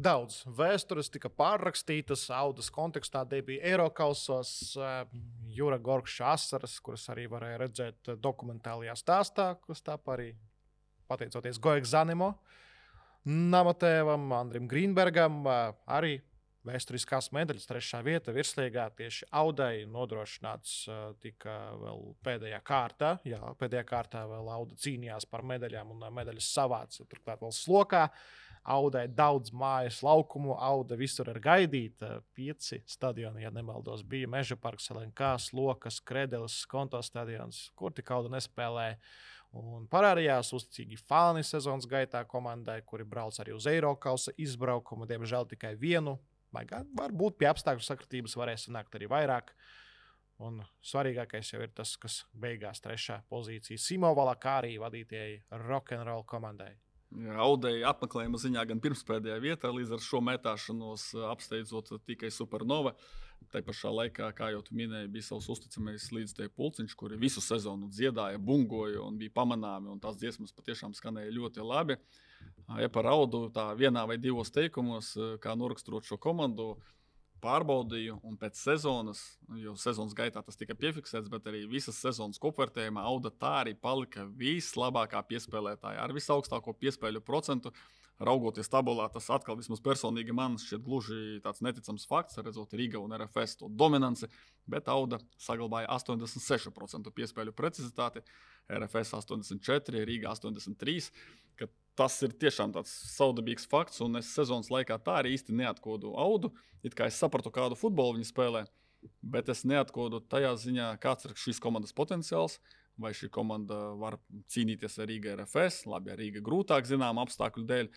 daudz vēstures tika pārrakstītas, Audas kontekstā debija Eirokausos, Jura Gorkša asaras, kuras arī varēja redzēt dokumentālajā stāstā, kas tāp arī pateicoties Goek Zanimo, Namatēvam, Andrim Grīnbergam, arī vēsturiskās medaļas 3. vieta virslīgā tieši Audai nodrošināts tika vēl pēdējā kārtā. Jā, pēdējā kārtā vēl Auda cīnījās par medaļām un medaļas savāca turklāt vēl slokā. Audai daudz mājas laukumu, Auda visur ir gaidīta. 5 stadioni, ja nemaldos, bija Meža parks, LNK, Slokas, Kredeles, Skonto stadions, kur tik Auda nespēlēja. Un parādījās uzticīgi fani sezonas gaitā komandai, kuri brauc arī uz Eirokausa izbraukumu, diemžēl tikai vienu. Varbūt pie apstākļu sakritības varēs sanākt arī vairāk. Un svarīgākais jau ir tas, kas beigās 3. pozīcija Simo Valakārī vadītajai rock'n'roll komandai. Audai apmeklējuma ziņā gan pirmspēdējā vietā, līdz ar šo metāšanos apsteidzot tikai Supernova. Tā pašā laikā, kā jau tu minēji, bija savs uzticamais līdzteju pulciņš, kuri visu sezonu dziedāja, bungoja un bija pamanāmi, un tās dziesmas patiešām skanēja ļoti labi. Ja par Audu tā vienā vai 2 teikumos, kā noraksturot šo komandu, pārbaudīju, un pēc sezonas, jo sezonas gaitā tas tika piefiksēts, bet arī visas sezonas kopvērtējumā Auda tā arī palika vislabākā piespēlētāja ar visaugstāko piespēļu procentu. Raugoties tabulā, tas atkal vismaz personīgi man šķiet gluži tāds neticams fakts, redzot Riga un RFS to dominanci, bet Auda saglabāja 86% piespēļu precizitāti, RFS 84%, Riga 83%, ka tas ir tiešām tāds saudabīgs fakts, un es sezonas laikā tā arī īsti neatkodu Audu, it kā es sapratu, kādu futbolu viņi spēlē, bet es neatkodu tajā ziņā, kāds ir šīs komandas potenciāls, vai šī komanda var cīnīties ar Riga RFS, labi, ar Riga grūtāk zinām apstākļu dēļ,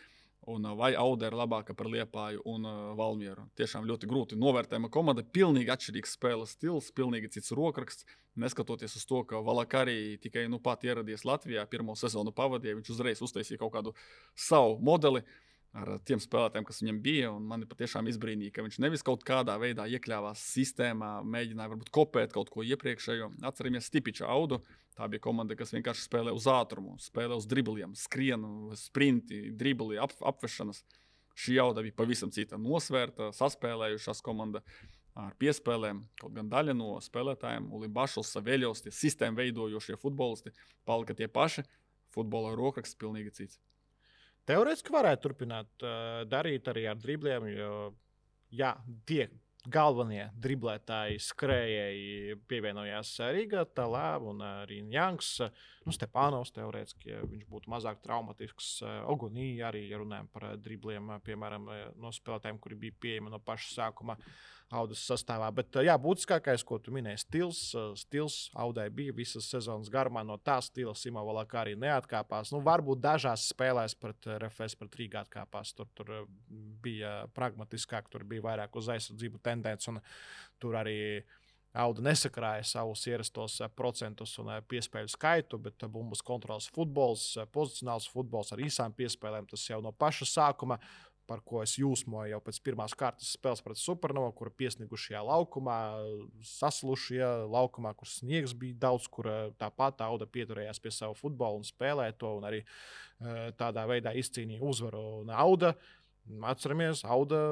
un vai Auda ir labāka par Liepāju un Valmieru. Tiešām ļoti grūti novērtējama komanda, pilnīgi atšķirīgs spēles stils, pilnīgi cits rokraksts, neskatoties uz to, ka Valakārī tikai pat ieradies Latvijā, pirmo sezonu pavadīja, viņš uzreiz uztaisīja kaut kādu savu modeli ar tiem spēlētājiem, kas viņam bija, un mani patiešām izbrīnīja, ka viņš nevis kaut kādā veidā iekļāvās sistēmā, mēģināja varbūt kopēt kaut ko iepriekšējo. Atceramies Stipiča Audu, tā bija komanda, kas vienkārši spēlē uz ātrumu, spēlē uz dribliem, skrienu, sprinti, dribli, apvešanas. Šī Auda bija pavisam cita nosvērta, saspēlējušās komanda ar piespēlēm, kaut gan daļa no spēlētājiem, Ulim Bašls, Saveļos, tie sistēmu veidojošie futbolisti, palika tie paši, futbola rokraksts pilnīgi cits. Teorētiski varētu turpināt darīt arī ar dribliem, jo jā, tie galvenie driblētāji, skrējēji pievienojās Riga, Talā un arī Janks. Stepānovs teorētiski, ja viņš būtu mazāk traumatisks. Ogunī arī, ja runājam par dribliem, piemēram, no spēlētājiem, kuri bija pieejami no paša sākuma Audas sastāvā. Bet jā, būtiskākais, ko tu minēji, stils Audai bija visas sezonas garumā. No tā stila Simo Valakārī neatkāpās. Varbūt dažās spēlēs pret RFS, pret Rīgā atkāpās. Tur bija pragmatiskāk, tur bija vairāk uz aizsardzību tendence, un tur arī Auda nesakrāja savus ierastos procentus un piespēļu skaitu, bet bumbas kontrols futbols, pozicionāls futbols ar īsām piespēlēm, tas jau no paša sākuma, par ko es jūsmoju jau pēc pirmās kārtas spēles pret Supernova, kur piesnigušajā laukumā, saslušajā laukumā, kur sniegs bija daudz, kur tāpat Auda pieturējās pie savu futbolu un spēlēja to, un arī tādā veidā izcīnīja uzvaru. Un Auda, atceramies, Auda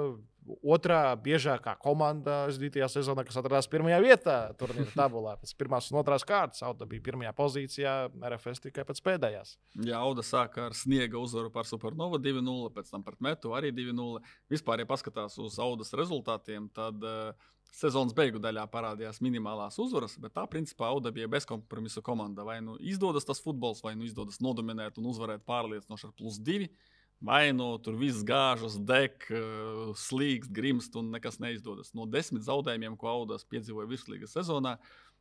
otrā biežākā komanda aizdītajā sezonā, kas atradās 1. vietā turnīra tabulā. Pēc 1. un 2. kārtas Auda bija 1. pozīcijā, RFS tikai pēc pēdējās. Jā, Auda sāka ar sniega uzvaru par Supernova 2-0, pēc tam pret Metu arī 2-0. Vispār, ja paskatās uz Audas rezultātiem, tad sezonas beigu daļā parādījās minimālās uzvaras, bet tā principā Auda bija bezkompromisu komanda. Vai nu izdodas tas futbols, vai nu izdodas nodominēt un uzvarēt pārliecinoši ar +2. Vai tur viss gāžas, deg, slīkst, grimst un nekas neizdodas. No 10 zaudējumiem, ko Audas piedzīvoja virslīgas sezonā,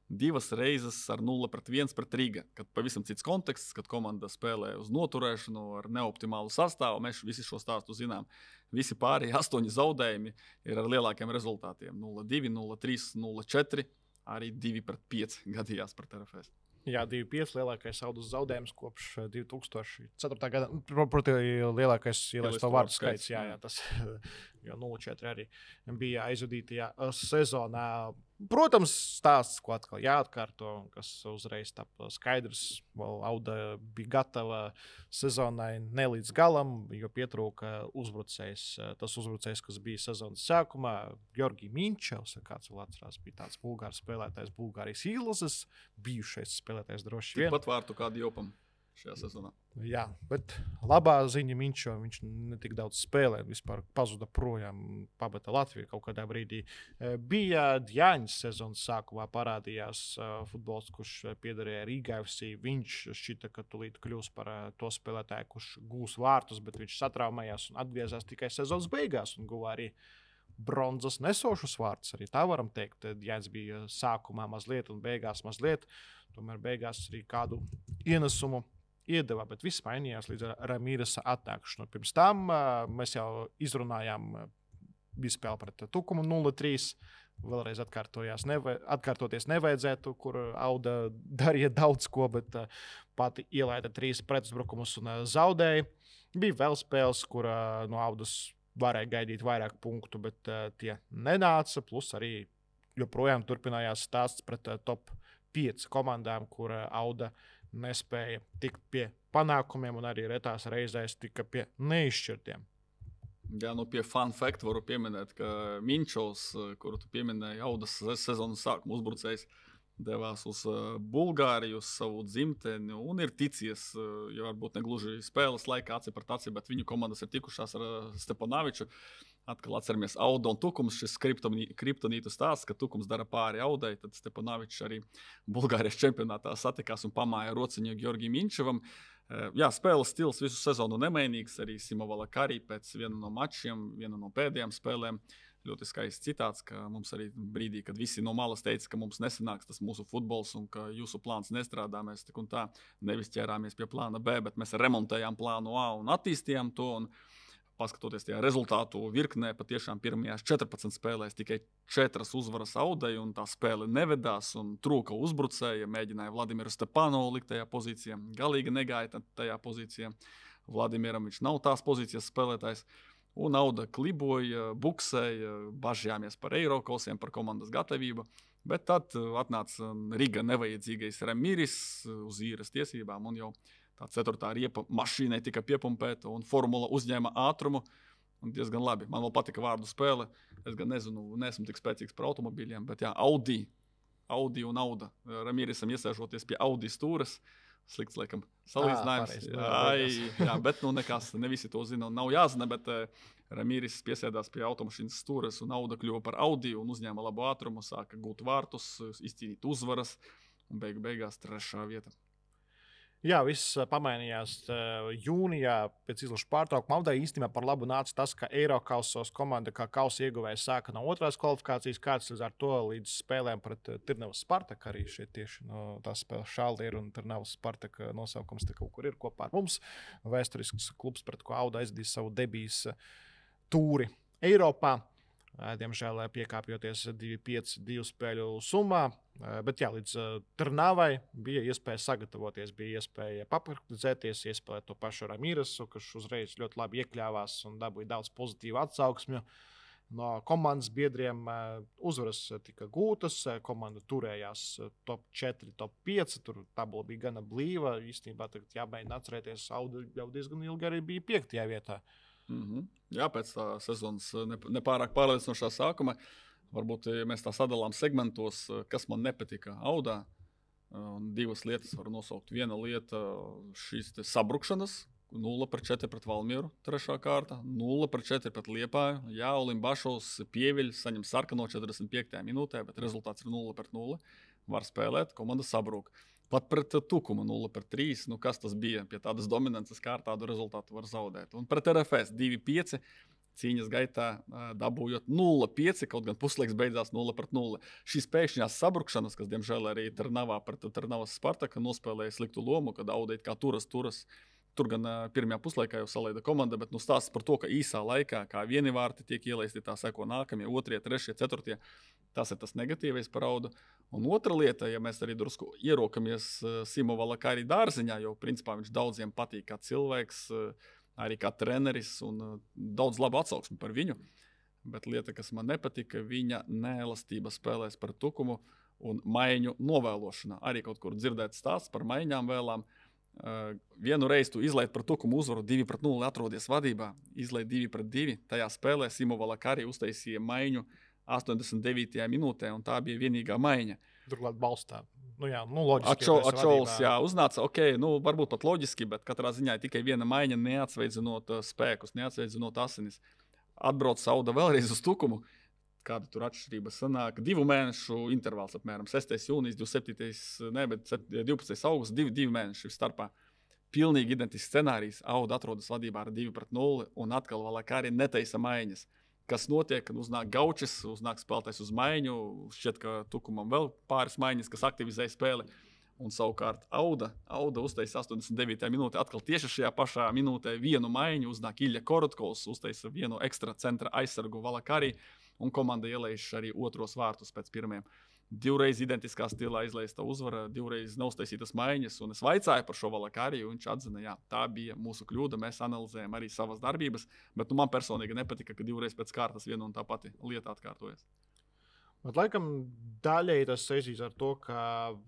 2 reizes ar 0-1 pret Riga. Kad pavisam cits konteksts, kad komanda spēlē uz noturēšanu ar neoptimālu sastāvu, mēs visi šo stāstu zinām. Visi pārējie 8 zaudējumi ir ar lielākiem rezultātiem. 0-2, 0-3, 0-4, arī 2-5 gadījās pret RFS. Jā, 2-5 lielākais Audas zaudējums kopš 2004. gada. Protams, lielākais ielaisto vārdu skaits. Jā, tas jau 0-4 arī bija aizvadītajā sezonā. Protams, stāsts, ko atkal jāatkārto, kas uzreiz tapa skaidrs. Auda bija gatava sezonai ne līdz galam, jo pietrūka uzbrucējs. Tas uzbrucējs, kas bija sezonas sākumā, Georgijs Minčevs, kāds vēl atcerās, bija tāds bulgārs spēlētājs, Bulgārijas izlases, bijušais spēlētājs droši vien. Pat vārtu kādu jopam šajā sezonā. Jā, bet labā ziņa viņš ne tik daudz spēlē, vispār pazuda projām, pabata Latviju kaut kādā brīdī. Bija Djāņas sezonas sākumā parādījās futbols, kurš piederēja Rīgai FC. Viņš šķita, ka tūlīt kļūs par to spēlētāju, kurš gūs vārtus, bet viņš satraumējās un atgriezās tikai sezonas beigās un guva arī bronzas nesošus vārtus. Arī tā varam teikt. Djāņas bija sākumā mazliet un beigās mazliet. Tomēr beigās arī kādu ienesumu iedeva, bet viss mainījās līdz Ramīresa atnākšanu. Pirms tam mēs jau izrunājām, bija spēle pret Tukumu 0-3. Vēlreiz atkārtoties nevajadzētu, kur Auda darīja daudz ko, bet pati ielaida 3 pretuzbrukumus un zaudēja. Bija vēl spēles, kur no Audas varēja gaidīt vairāk punktu, bet tie nenāca. Plus arī joprojām turpinājās stāsts pret top 5 komandām, kur Auda nespēja tikt pie panākumiem un arī retās reizēs tika pie neizšķirtiem. Jā, pie fun fact varu pieminēt, ka Minčovs, kuru tu pieminēji, Audas sezonas sākuma uzbrucējs, devās uz Bulgāriju, uz savu dzimteni un ir ticies, jo varbūt ne gluži spēles laikā aci pret aci, bet viņu komandas ir tikušās ar Stepanoviču. Atkal atceramies Auda un Tukums, šis kriptonītu stāsts, ka Tukums dara pāri Audai, tad Stepanovičs arī Bulgārijas čempionātā satikās un pamāja rociņu Georgijam Minčevam. Jā, spēles stils visu sezonu nemainīgs, arī Simovala Karī pēc viena no mačiem, viena no pēdējām spēlēm. Ļoti skaists citāts, ka mums arī brīdī, kad visi no malas teica, ka mums nesanāks tas mūsu futbols un ka jūsu plāns nestrādā, mēs tik un tā nevis ķērāmies pie plāna B, bet mēs remontējām plānu A un attīstījām to. Un paskatoties tajā rezultātu virknē, patiešām pirmajās 14 spēlēs tikai 4 uzvaras Audai, un tā spēle nevedās, un trūka uzbrucēja, mēģināja Vladimiru Stepanovu likt tajā pozīcijā, galīgi negāja tajā pozīcijā. Vladimiram viņš nav tās pozīcijas spēlētājs, un Auda kliboja, buksēja, bažījāmies par Eirokausiem, par komandas gatavību, bet tad atnāca Riga nevajadzīgais Ramīris uz īres tiesībām, un jau tā 4. riepa mašīnai tika piepumpēta un formula uzņēma ātrumu. Un diezgan labi. Man vēl patika vārdu spēle. Es gan nezinu, neesmu tik spēcīgs par automobīļiem, bet jā, Audi un Auda. Ramīrisam iesēžoties pie Audi stūres. Slikts, laikam, salīdzinājums. Jā, bet nekas, ne visi to zina un nav jāzina, bet Ramīris piesēdās pie automašīnas stūres un Auda kļuva par Audi un uzņēma labu ātrumu, sāka gūt vārtus, izcīnīt uzvaras un beigās 3. vieta. Jā, viss pamainījās jūnijā pēc izlašu pārtraukuma. Audai īstenībā par labu nāca tas, ka Eirokausos komanda kā kausa ieguvējs sāka no 2. kvalifikācijas kārtas līdz ar to līdz spēlēm pret Tirnavas Spartaku. Arī šeit tieši no tās spēles Šaldiera un Tirnavas Spartaka nosaukums te kaut kur ir kopā ar mums. Vēsturisks klubs, pret ko Auda aizdīs savu debijas tūri Eiropā. Diemžēl piekāpjoties 2-5 spēļu summā. Bet jā, līdz Trnavai bija iespēja sagatavoties, bija iespēja papraktizēties, iespēja to pašu Ramīresu, kurš uzreiz ļoti labi iekļāvās un dabūja daudz pozitīvu atsauksmju. No komandas biedriem uzvaras tika gūtas, komanda turējās top 4, top 5, tur tabula bija gana blīva. Īstenībā tagad jāmēģina atcerēties, Auda jau diezgan ilgi arī bija 5. vietā. Jā, pēc tā sezonas nepārāk pārliecinošā sākuma. Varbūt mēs tā sadalām segmentos, kas man nepatika Audā. 2 lietas varu nosaukt. Viena lieta šīs sabrukšanas. 0-4 pret Valmieru, 3. kārta. 0-4 pret Liepāju. Jā, Olimbašovs pieviļ, saņem sarkano 45. minūtē, bet rezultāts ir 0-0. Var spēlēt, komanda sabrūk. Pat pret Tukumu 0-3, kas tas bija pie tādas dominances, kā ar tādu rezultātu var zaudēt. Un pret RFS 2-5 cīņas gaitā dabūjot 0-5, kaut gan puslaiks beidzās 0-0. Šīs pēkšņās sabrukšanas, kas diemžēl arī Trnavā pret Trnavas Spartaka nospēlēja sliktu lomu, kad Auda it kā turas. Tur gan pirmajā puslaikā jau salaida komanda, bet stāsts par to, ka īsā laikā, kā vieni vārti tiek ielaisti, tā seko nākamie, 2., 3., 4. Tas ir tas negatīvais par Audu. Un otra lieta, ja mēs arī drusku ierokamies Simovala Karī dārziņā, jo principā viņš daudziem patīk kā cilvēks, arī kā treneris un daudz labu atsauksmi par viņu. bet lieta, kas man nepatika, viņa neelastība spēlēs par tukumu un maiņu novēlošanā. Arī kaut kur dzirdēt stāsts par maiņām vēlām. Vienu reizi tu izlaid par tukumu uzvaru 2-0, atrodies vadībā, izlaid 2-2. Tajā spēlē Simo Valakari uztaisīja maiņu 89. minūtē, un tā bija vienīgā maiņa. Turklāt balstā. Loģiski. Ačols, uznāca, varbūt pat loģiski, bet katrā ziņā tikai viena maiņa, neatsveidzinot spēkus, neatsveidzinot asinis. Atbrauc Sauda vēlreiz uz tukumu. Kāda tur atšķirība sanāk? 2 mēnešu intervāls apmēram. 6. jūnijas, 12. augusts, 2 mēneši starpā. Pilnīgi identisks scenārijs. Auda atrodas vadībā ar 2-0 un atkal Valakari netaisa maiņas. Kas notiek, kad uznāk Gaučis, uznāk spēlētājs uz maiņu, šķiet, ka tukumam vēl pāris maiņas, kas aktivizē spēli. Un savukārt Auda uztaisa 89. minūtē, atkal tieši šajā pašā minūtē vienu maiņu, uznāk Ilja Korotkovs, uztaisa vienu ekstra centra aizsargu Valakari, un komanda ielaiž arī otros vārtus pēc pirmiem. 2 reizi identiskā stilā izlaista uzvara, 2 reizi neuztaisītas maiņas, un es vaicāju par šo Valakari, un viņš atzina, jā, tā bija mūsu kļūda, mēs analizējam arī savas darbības, bet man personīgi nepatika, ka 2 reizes pēc kārtas viena un tā pati lieta atkārtojas. Bet, laikam, daļēji tas saistīs ar to, ka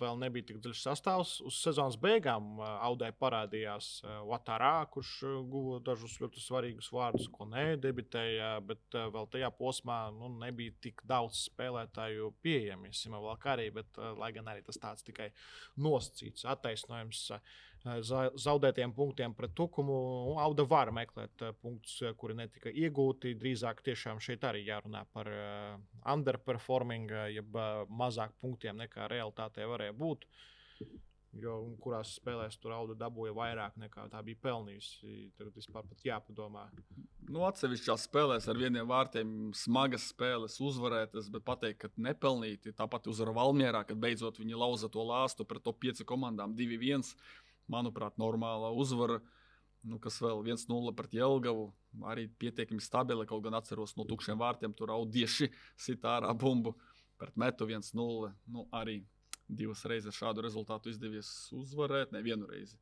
vēl nebija tik dziļš sastāvs. Uz sezonas beigām Audai parādījās Ouattara, kurš guva dažus ļoti svarīgus vārdus, ko nedebitēja, bet vēl tajā posmā nebija tik daudz spēlētāju pieejami. Simo Valakari, bet lai gan arī tas tāds tikai nosacīts attaisnojums zaudētiem punktiem pret tukumu, Auda var meklēt punktus, kuri netika iegūti. Drīzāk tiešām šeit arī jārunā par underperforming, jeb mazāk punktiem nekā realitātē varēja būt. Jo kurās spēlēs tur Auda dabūja vairāk nekā tā bija pelnījusi. Tad vispār pat jāpadomā. Atsevišķās spēlēs ar vieniem vārtiem smagas spēles uzvarētas, bet pateikt, ka nepelnīti. Tāpat uzvara Valmierā, kad beidzot viņi lauza to lāstu pret top 5 komandām 2-1. Manuprāt, normāla uzvara, kas vēl 1-0 pret Jelgavu, arī pietiekami stabila, kaut gan atceros no tukšiem vārtiem, tur Audieši sit ārā bumbu pret Metu 1-0, arī 2 reizes šādu rezultātu izdevies uzvarēt, nevienu reizi.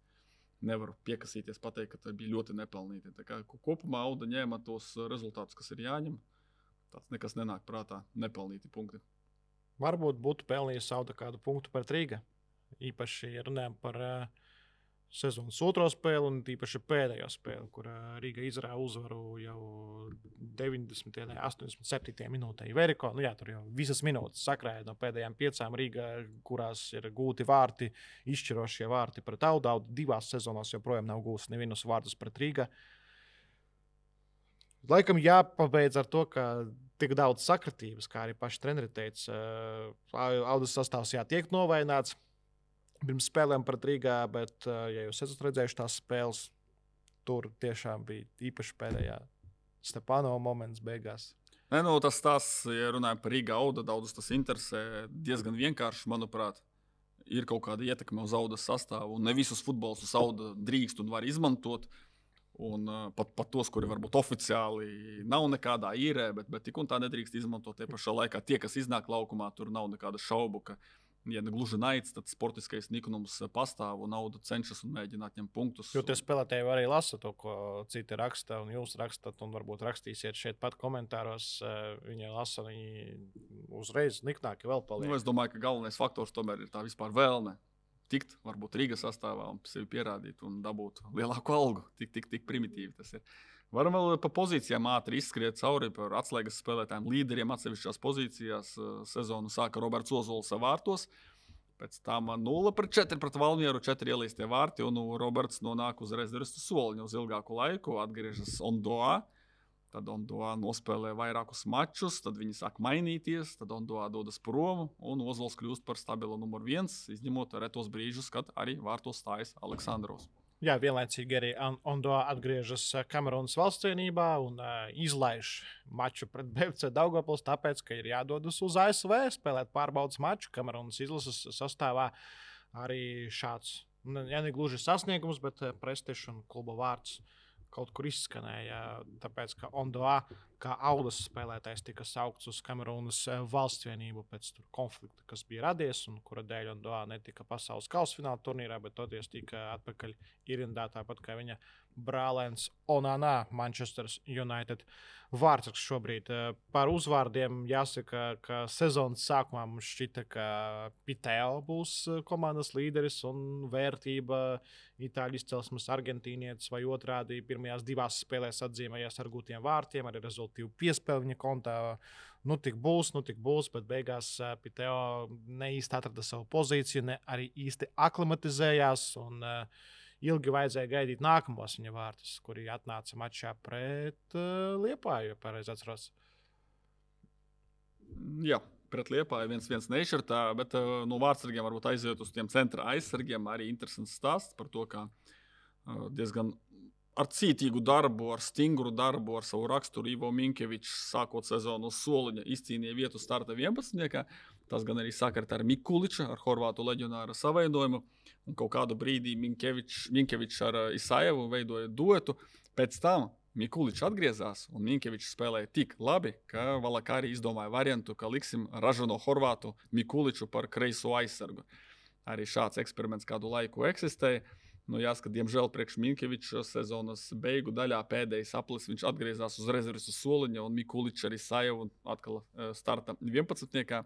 Nevaru piekasīties pateikt, ka tā bija ļoti nepelnīti. Tā kā kopumā Auda ņēma tos rezultātus, kas ir jāņem, tāds nekas nenāk prātā, nepelnīti punkti. Varbūt būtu pelnījis Auda kādu punktu pret Rīga, īpaši runājam par sezonas otro spēli un tīpaši pēdējo spēli, kur Rīga izrāva uzvaru jau 90. un 87. minūtē. Veriko, tur jau visas minūtes sakrāja no pēdējām 5 Rīga, kurās ir gūti vārti, izšķirošie vārti pret Audu. Auda 2 sezonās joprojām nav gūs nevienus vārtus pret Rīga. Laikam jāpabeidz ar to, ka tik daudz sakritības, kā arī paši treneri teica, Audas sastāvs tiek novaināts pirms spēlēm pret Rīgā, bet, ja jūs esat redzējuši tās spēles, tur tiešām bija īpaši pēdējā Stepanova moments beigās. Tas stāsts, ja runājam par Rīgā Auda, daudzus tas interesē diezgan vienkārši, manuprāt. Ir kaut kāda ietekme uz Audas sastāvu, un ne visus futbolus Auda drīkst un var izmantot. Un pat tos, kuri varbūt oficiāli nav nekādā īrē, bet tik un tā nedrīkst izmantot. Tie pašā laikā tie, kas iznāk laukumā, tur nav nekāda šaubu, ka ja ne gluži naids, tad sportiskais niknums pastāv un Auda cenšas un mēģina atņemt punktus. Jo tie spēlētāji arī lasa to, ko citi raksta, un jūs rakstat, un varbūt rakstīsiet šeit pat komentāros. Viņi lasa, viņi uzreiz niknāki vēl paliek. Es domāju, ka galvenais faktors tomēr ir tā vispār vēlme tikt, varbūt Rīgas sastāvā un sevi pierādīt un dabūt lielāku algu. Tik primitīvi tas ir. Varam vēl pa pozīcijām ātri izskriet cauri par atslēgas spēlētājiem, līderiem atsevišķās pozīcijās. Sezonu sāka Roberts Ozols vārtos, pēc tam 0-4 pret Valmieru, 4 ielaistie vārti, un Roberts nonāk uz rezervistu soliņu uz ilgāku laiku, atgriežas Ondoā. Tad Ondoā nospēlē vairākus mačus, tad viņi sāk mainīties, tad Ondoā dodas prom, un Ozols kļūst par stabilu numur 1, izņemot retos brīžus, kad arī vārtos stājas Aleksandrovs. Jā, vienlaicīgi arī Ondoā atgriežas Kamerūnas valstscienībā un izlaiž maču pret BFC Daugavpils, tāpēc, ka ir jādodas uz ASV spēlēt pārbaudas maču. Kamerūnas izlases sastāvā arī šāds, ja ne gluži sasniegums, bet prestižs un kluba vārds kaut kur izskanēja, tāpēc, ka Ondoā kā Audas spēlētājs tika saukts uz Kamerūnas valsts vienību pēc konflikta, kas bija radies un kura dēļ Ondoa netika pasaules kausfināla turnīrā, bet toties tika atpakaļ ierindā, tāpat kā viņa brālēns Onana, Manchester United vārdsargs šobrīd. Par uzvārdiem jāsaka, ka sezonas sākumā mums šķita, ka Piteo būs komandas līderis un vērtība itāļu izcelsmes argentīnietis vai otrādi pirmajās 2 spēlēs atzīmējās ar gūtiem vārtiem, arī rezultīvu piespēli viņa kontā. Nu tik būs, bet beigās Piteo ne īsti atrada savu pozīciju, ne arī īsti aklimatizējās un ilgi vajadzēja gaidīt nākamos viņa vārtus, kuri atnāca mačā pret Liepāju, ja pareizi atceros. Jā, pret Liepāju 1-1 nešķirtā, bet no vārdsargiem varbūt aiziet uz tiem centra aizsargiem. Arī interesants stāsts par to, kā diezgan ar cītīgu darbu, ar stingru darbu, ar savu raksturu Ivo Minkevičs sākot sezonu uz soliņa izcīnīja vietu starta 11. Tas gan arī sakarta ar Mikuliča, ar horvātu leģionāra savaidojumu. Un kaut kādu brīdī Minkevičs ar Isajevu veidoja duetu. Pēc tam Mikuličs atgriezās un Minkevičs spēlēja tik labi, ka Valakari izdomāja variantu, ka liksim ražano horvātu Mikuliču par kreiso aizsargu. Arī šāds eksperiments kādu laiku eksistēja. Nu, jāsaka, diemžēl priekš Minkeviča sezonas beigu daļā pēdējais aplis viņš atgriezās uz rezerves uz soliņa un Mikuličs arī Isajevu atkal starta 11.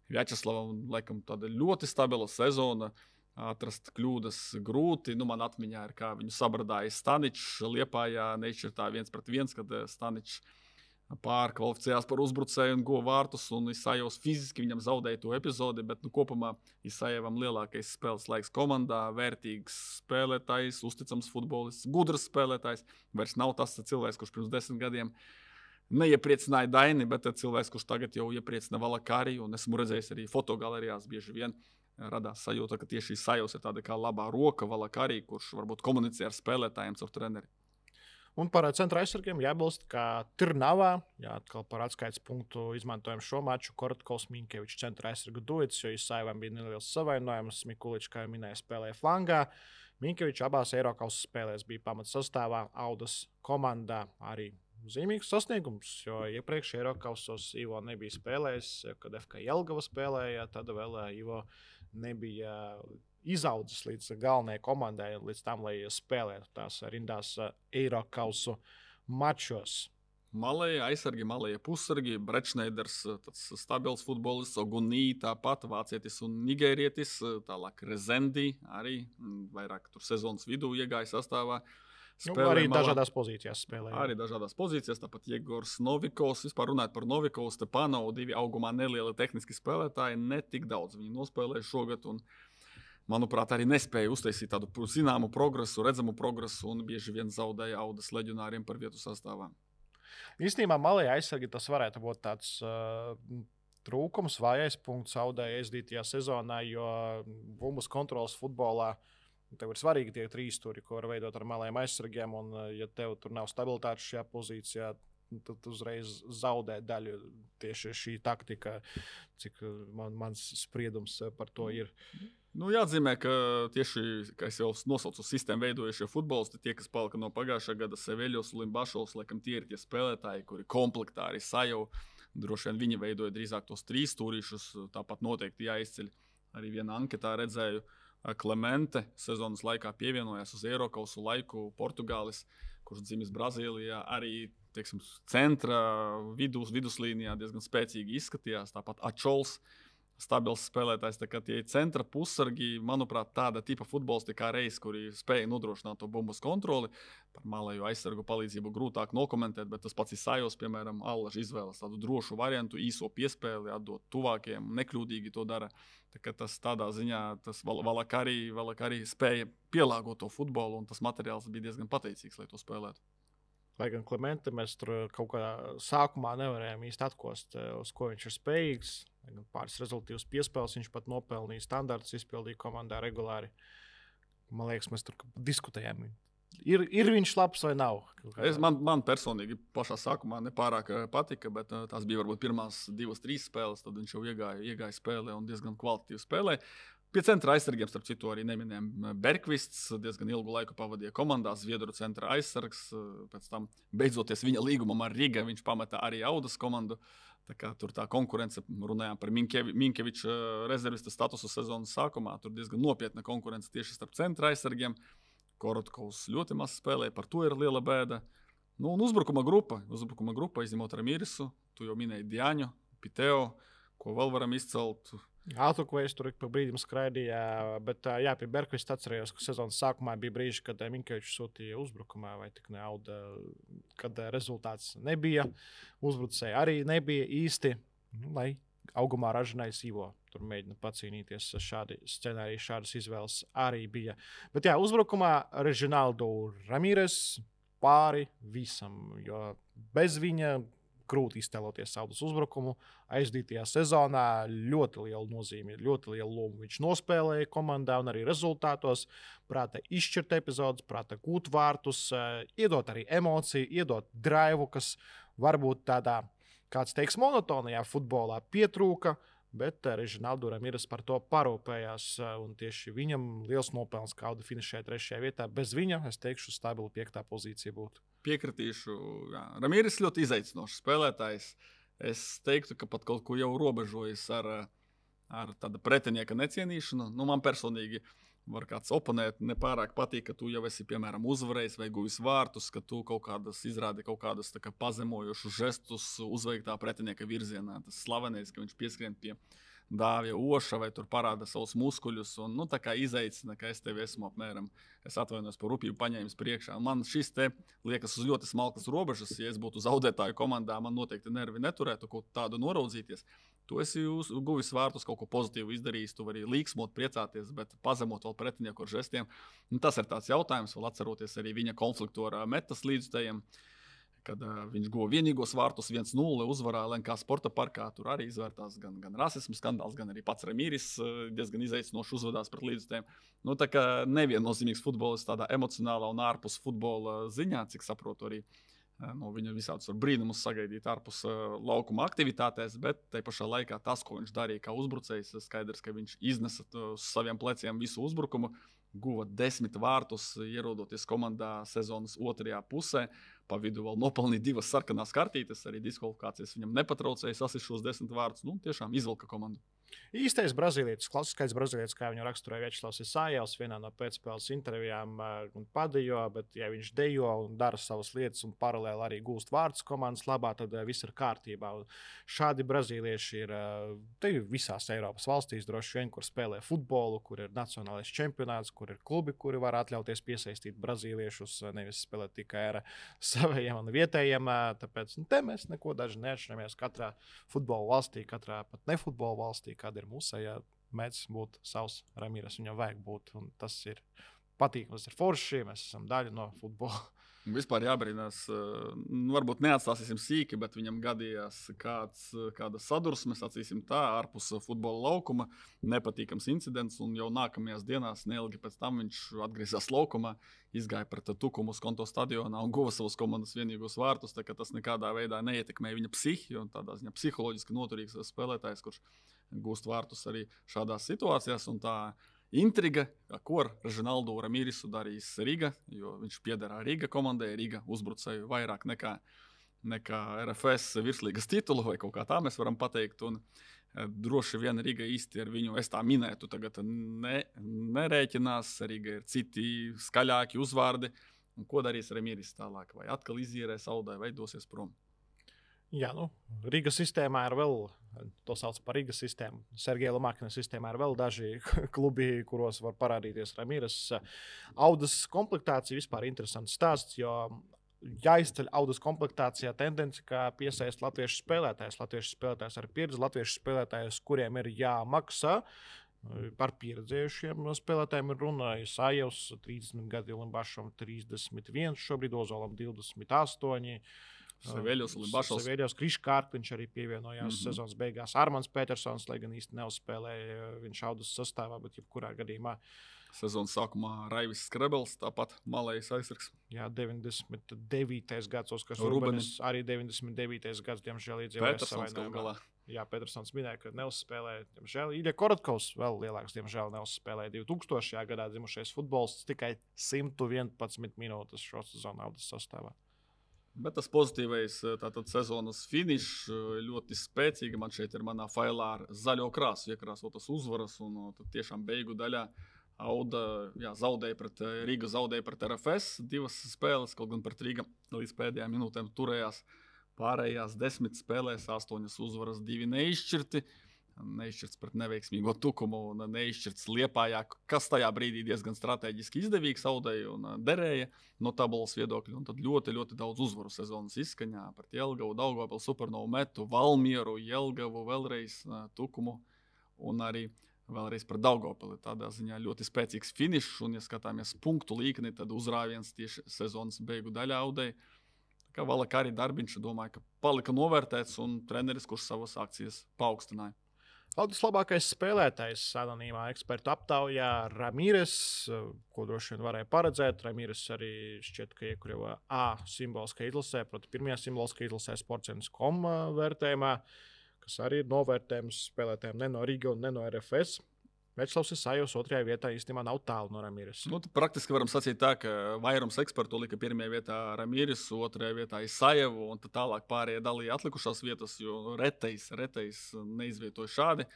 Vjačeslavam laikam tāda ļoti stabila sezona, atrast kļūdas grūti. Nu, man atmiņā ir, kā viņu sabradāja Staničs Liepājā nešķirtā 1-1, kad Staničs pārkvalificējās par uzbrucēju un guva vārtus, un Isajevs fiziski viņam zaudēja to epizodi, bet kopumā Isajevam lielākais spēles laiks komandā, vērtīgs spēlētājs, uzticams futbolists, gudrs spēlētājs. Vairs nav tas cilvēks, kurš pirms 10 gadiem neiepriecināja Daini, bet cilvēks, kurš tagad jau iepriecina Valakari, un esmu redzējis arī fotogalerijās bieži vien radās sajūta, ka tieši Isajevs ir tāda kā labā roka Valakari, kurš varbūt komunicē ar spēlētājiem caur treneri. Un par centra aizsargiem jābilst, ka Tirnavā, atkal par atskaites punktu izmantojam šo maču, Korotkovs Minkevičs centra aizsargu duets, jo Isajevam bija neliels savainojums, Mikuličs, kā jau minēja, spēlēja flangā. Minkevičs abās Eirokausas spēlēs bija pamatsastāvā, Audas komandā arī zīmīgs sasniegums, jo iepriekš Eirokausos Ivo nebija spēlējis, kad FK Jelgava spēlēja, tad vēl Ivo nebija izaudzis līdz galvenajai komandai, līdz tam, lai spēlētu tās rindās Eirokausu mačos. Malēja aizsargi, malēja pussargi, Brečneiders, tāds stabils futbolists, Ogunī tāpat, vācietis un nigērietis, tālāk Rezendi arī vairāk tur sezonas vidū iegāja sastāvā. Arī dažādās pozīcijās spēlēja. Arī dažādās pozīcijās, tāpat Jegors Novikovs. Vispār runājot par Novikovs, Stepanovu, 2 augumā nelieli tehniski spēlētāji, ne tik daudz viņi nospēlēja šogad un, manuprāt, arī nespēja uztaisīt tādu zināmu progresu, redzamu progresu un bieži vien zaudēja Audas leģionāriem par vietu sastāvā. Īstenībā malēja aizsargi tas varētu būt tāds trūkums, vājais punkts Audai aizdītajā sezonā, jo bumbas kontrolas futbolā tev ir svarīgi tie 3 stūri, ko var veidot ar malējiem aizsargiem, un ja tev tur nav stabilitātes šajā pozīcijā, tad uzreiz zaudē daļu tieši šī taktika, cik mans spriedums par to ir. Nu, jāatzīmē, ka tieši, kā es jau nosaucu, sistēmu veidojušie futbolisti, tie, kas palika no pagājušā gada, Seveļos, Limbašovs, laikam tie ir tie spēlētāji, kuri komplektā arī Sajevu. Droši vien viņi veidoja drīzāk tos 3 stūrīšus, tāpat noteikti jāizceļ. Arī vienā anketā redzēju, Klemente sezonas laikā pievienojās uz Eirokausu laiku Portugālis, kurš dzimis Brazīlijā, arī teiksim, centra viduslīnijā diezgan spēcīgi izskatījās. Tāpat Ačols, stabils spēlētājs, tā kā tie centra pussargi, manuprāt, tāda tipa futbolisti kā Reis, kuri spēja nodrošināt to bumbas kontroli. Par malēju aizsargu palīdzību grūtāk nokomentēt, bet tas pats Isajevs, piemēram, Allaž izvēlas tādu drošu variantu, īso piespēli, atdot tuvākiem, nekļūdīgi to dara. Tā kā tas tādā ziņā, tas Valakari spēja pielāgot to futbolu, un tas materiāls bija diezgan pateicīgs, lai to spēlētu. Lai gan Klemente mēs tur kaut kā sākumā nevarējām īsti atkost, uz ko viņš ir spējīgs. Pāris rezultīvas piespēles viņš pat nopelnīja, standartus izpildīja komandā regulāri. Man liekas, mēs tur diskutējām. Ir viņš labs vai nav? Man personīgi pašā sākumā nepārāk patika, bet tās bija varbūt pirmās 2-3 spēles, tad viņš jau iegāja spēlē un diezgan kvalitatīvi spēlē. Pie centra aizsargiem, starp citu, arī neminējām Berkvists. Diezgan ilgu laiku pavadīja komandā, Zviedru centra aizsargs. Pēc tam, beidzoties viņa līgumam ar Riga, viņš pameta arī Audas komandu. Tā kā tur tā konkurence, runājām par Minkeviča rezervista statusu sezonas sākumā. Tur diezgan nopietna konkurence tieši starp centra aizsargiem. Korotkovs ļoti maz spēlēja, par to ir liela bēda. Nu, un uzbrukuma grupa, izņemot Ramīrisu, tu jau minēji Diaņu, Piteo, ko vēl varam izcelt. Autokvejs tur pa brīdim skraidīja, bet jā, pie Berkvista atcerējos, ka sezonas sākumā bija brīži, kad Minkevičs sūtīja uzbrukumā, vai tik ne Auda, kad rezultāts nebija. Uzbrucēji arī nebija īsti, lai augumā ražinājis Ivo. Tur mēģina pacīnīties šādi scenāriji, šādas izvēles arī bija. Bet jā, uzbrukumā Režinaldo Ramīres pāri visam, jo bez viņa grūti iztēloties Audas uzbrukumu. Aizdītajā sezonā ļoti liela nozīme, ļoti liela loma viņš nospēlēja komandā un arī rezultātos. Prāta izšķirt epizodes, prāta gūt vārtus, iedot arī emociju, iedot draivu, kas varbūt tādā, kāds teiks, monotonajā futbolā pietrūka, bet Režinaldo Ramīres par to parūpējās. Un tieši viņam liels nopelns, ka Auda finišēja 3. vietā. Bez viņa, es teikšu, stabila 5. pozīcija būtu. Piekritīšu. Jā. Ramīres ļoti izaicinošs spēlētājs. Es teiktu, ka pat kaut ko jau robežojas ar tāda pretinieka necienīšanu. Nu, man personīgi var kāds oponēt, nepārāk patīk, ka tu jau esi, piemēram, uzvarējis vai guvis vārtus, ka tu izrādi kaut kādus pazemojošus žestus uzveiktā pretinieka virzienā. Tas slavenais, ka viņš pieskrien pie Dāvija Oša vai tur parāda savus muskuļus un tā kā izaicina, ka es tevi esmu apmēram, es atvainojos par rupību paņēmis priekšā. Man šis te liekas uz ļoti smalkas robežas. Ja es būtu zaudētāju komandā, man noteikti nervi neturētu kaut tādu noraudzīties. Tu esi guvis vārtus, kaut ko pozitīvu izdarījis, tu vari līksmot, priecāties, bet pazemot vēl pretinieku ar žestiem. Tas ir tāds jautājums, vēl atceroties arī viņa konfliktu ar metas līdzstājiem. Kad viņš guva vienīgos vārtus 1-0 uzvarā LNK sporta parkā, tur arī izvērtās gan rasismu skandāls, gan arī pats Ramīris diezgan izaicinoši uzvedās pret līdzstājiem. Tā kā neviennozīmīgs futbolists tādā emocionālā un ārpus futbola ziņā, cik saprotu arī no viņa visādus brīnumus sagaidīt ārpus laukuma aktivitātēs, bet tai pašā laikā tas, ko viņš darīja kā uzbrucējs, skaidrs, ka viņš iznesa uz saviem pleciem visu uzbrukumu, guva 10 vārtus, ierodoties komandā sezonas otrajā pusē. Pa vidu vēl nopelnīja 2 sarkanās kartītes, arī diskvalifikācijas viņam nepatraucēja sasist šos 10 vārdus. Tiešām izvilka komandu. Īstais brazīlietis, klasiskais brazīlietis, kā viņu raksturoja Viečslavs Isājevs vienā no pēcspēles intervijām un padejo, bet ja viņš dejo un dara savas lietas un paralēli arī gūst vārdus komandas labā, tad viss ir kārtībā. Un šādi brazīlieši ir visās Eiropas valstīs, droši vien, kur spēlē futbolu, kur ir nacionālais čempionāts, kur ir klubi, kuri var atļauties piesaistīt brazīliešus, nevis spēlēt tikai ar saviem un vietējiem. Tāpēc te mēs neko daži neatšķiramies katrā futbola valstī, katrā pat nefutbola valstī, kāda ir mūsējā, mēdz būt savs Ramīres, viņam vajag būt, un tas ir patīkami, tas ir forši, mēs esam daļa no futbola. Vispār jābrīnās, varbūt neatstāsim sīki, bet viņam gadījās kāda sadursme, sacīsim tā, ārpus futbola laukuma, nepatīkams incidents, un jau nākamajās dienās, neilgi pēc tam viņš atgriezās laukumā, izgāja pret Tukumu uz Konto stadionā un guva savus komandas vienīgos vārtus, tā ka tas nekādā veidā neietekmēja viņa psihi, un tādā ziņā psiholoģiski noturīgs spēlētājs, kurš gūst vārtus arī šādās situācijās, un tā intriga, ko ar Režinaldo Ramīrisu darīs Riga, jo viņš pieder Riga komandai, Riga uzbrucēju vairāk nekā RFS virslīgas titulu, vai kaut kā tā mēs varam pateikt. Un droši vien Riga īsti ar viņu, es tā minētu, tagad nerēķinās. Riga ir citi skaļāki uzvārdi. Un ko darīs Ramīris tālāk? Vai atkal izīrēs Audai, vai dosies prom? Jā, Rīgas sistēmā ir vēl, to sauc par Rīgas sistēmu. Sergeja Lomakina sistēmā ir vēl daži klubi, kuros var parādīties Ramīres. Audas komplektācija vispār interesants stāsts, jo jāizceļ Audas komplektācijā tendence, kā piesaist latviešu spēlētājus. Latviešu spēlētājus ar pieredzi, latviešu spēlētājus, kuriem ir jāmaksā. Par pieredzējušiem spēlētājiem ir runa. Isājevs 30 gadi, Limbašam 31, šobrīd Ozolam 28. Seveļos, Limbašovs. Seveļos, Kriškārpiņš arī pievienojās sezonas beigās. Armāns Petersons, lai gan īsti neuzspēlēja viņš Audas sastāvā, bet jebkurā gadījumā. Sezonas sākumā Raivis Skrebels, tāpat malējs aizsargs. Jā, 99. gads, Oskars Rubenis, arī 99. gads, diemžēl iedzīvoja savainojumā. Jā, Petersons minēja, ka neuzspēlēja. Diemžēl Ilja Korotkovs vēl lielāks, diemžēl neuzspēlēja 2000. gadā dzimušais futbolists tikai 111 minūtes šo sezonu Audas sastāvā. Bet tas pozitīvais tātad sezonas finišs ļoti spēcīgi. Man šeit ir manā failā ar zaļo krāsu iekrāsotas uzvaras un tad tiešām beigu daļā Auda Rīga zaudēja pret RFS 2 spēles, kaut gan pret Rīga līdz pēdējām minūtēm turējās. Pārējās 10 spēlēs 8 uzvaras, 2 neizšķirti. Neizšķirts pret neveiksmīgo Tukumu un neizšķirts Liepājā, kas tajā brīdī diezgan strateģiski izdevīgs Audai un derēja no tabulas viedokļa. Un tad ļoti, ļoti daudz uzvaru sezonas izskaņā pret Jelgavu, Daugavpili, Supernovu Metu, Valmieru, Jelgavu, vēlreiz Tukumu un arī vēlreiz pret Daugavpili. Tādā ziņā ļoti spēcīgs finišs un, ja skatāmies punktu līkni, tad uzrāviens tieši sezonas beigu daļā Audai. Kā Valaka arī darbiņš, domāju, ka palika novērtēts un treneris, kurš savas akcijas paaugstināja. Audas labākais spēlētājs anonīmā ekspertu aptaujā Ramīres, ko droši vien varēja paredzēt. Ramīres arī šķiet, ka iekļuva A simboliskā izlasē, proti pirmajā simboliskā izlasē Sports.com vērtējumā, kas arī ir novērtējums spēlētājiem ne no Riga un ne no RFS. Večslavs Isajevs 2. vietā īstenībā nav tālu no Ramīres. Praktiski varam sacīt tā, ka vairums ekspertu lika 1. vietā Ramīres, 2. vietā Isajevu un tad tālāk pārējie dalīja atlikušās vietas, jo retais neizvietoja šādi.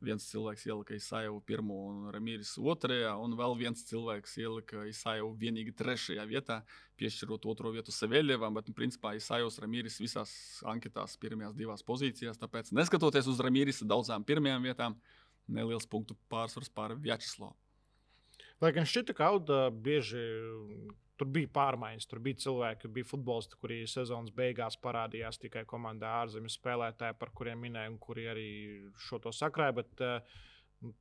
Viens cilvēks ielika Isajevu 1. un Ramīres 2. un vēl viens cilvēks ielika Isajevu vienīgi 3. vietā, piešķirot 2. vietu Seveļevam, bet principā Isajevs Ramīres visās anketās pirmajās 2 pozīcijās, tāpēc neskatoties uz Ramīres daudzām 1. vietām, neliels punktu pārsvars pār Vjačeslavu. Lai gan šķita, ka Auda bieži tur bija pārmaiņas, tur bija cilvēki, bija futbolisti, kuri sezonas beigās parādījās tikai komandā ārzemju spēlētāji, par kuriem minēja un kuri arī šo to sakrāja, bet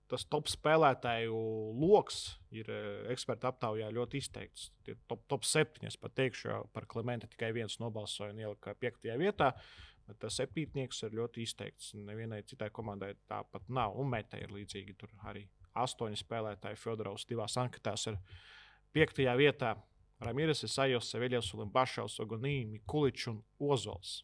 tas top spēlētāju loks ir eksperta aptaujā ļoti izteikts. Tie top 7, es pat teikšu, par Klimenta tikai viens nobalsoja un ielika 5. vietā. Bet tas 7. ir ļoti izteikts. Nevienai citai komandai tāpat nav. Un Meta ir līdzīgi. Tur arī 8 spēlētāji Fjodorovs 2 anketās ir 5. vietā. Ramīres, Isajevs, Seveļevs, Limbašovs, Ogonī, Mikuličs un Ozols.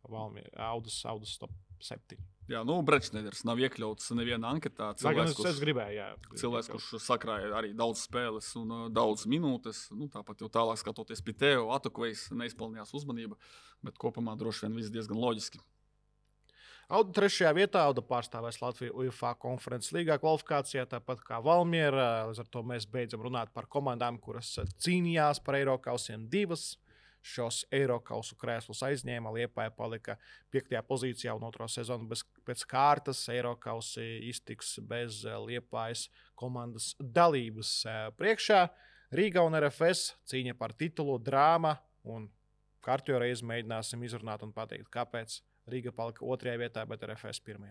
Audas top 7. Jā, Brečneders nav iekļauts nevienā anketā. Es gribēju, jā. Cilvēks, kurš sakrāja arī daudz spēles un daudz minūtes. Tāpat jau tālāk skatoties Piteo, Atukvejs neizpelnījās uzmanība, bet kopumā droši vien viss diezgan loģiski. Auda 3. vietā, Auda pārstāvēs Latviju UEFA konferences līgā kvalifikācijā, tāpat kā Valmiera. Līdz ar to mēs beidzam runāt par komandām, kuras cīnījās par Eirokausiem 2. Šos Eirokausu krēslus aizņēma, Liepāja palika 5. pozīcijā un 2. sezonu pēc kārtas. Eirokausi iztiks bez Liepājas komandas dalības priekšā. Rīga un RFS cīņa par titulu, drāma un kārtējo reizi mēģināsim izrunāt un pateikt, kāpēc Rīga palika 2. vietā, bet RFS 1.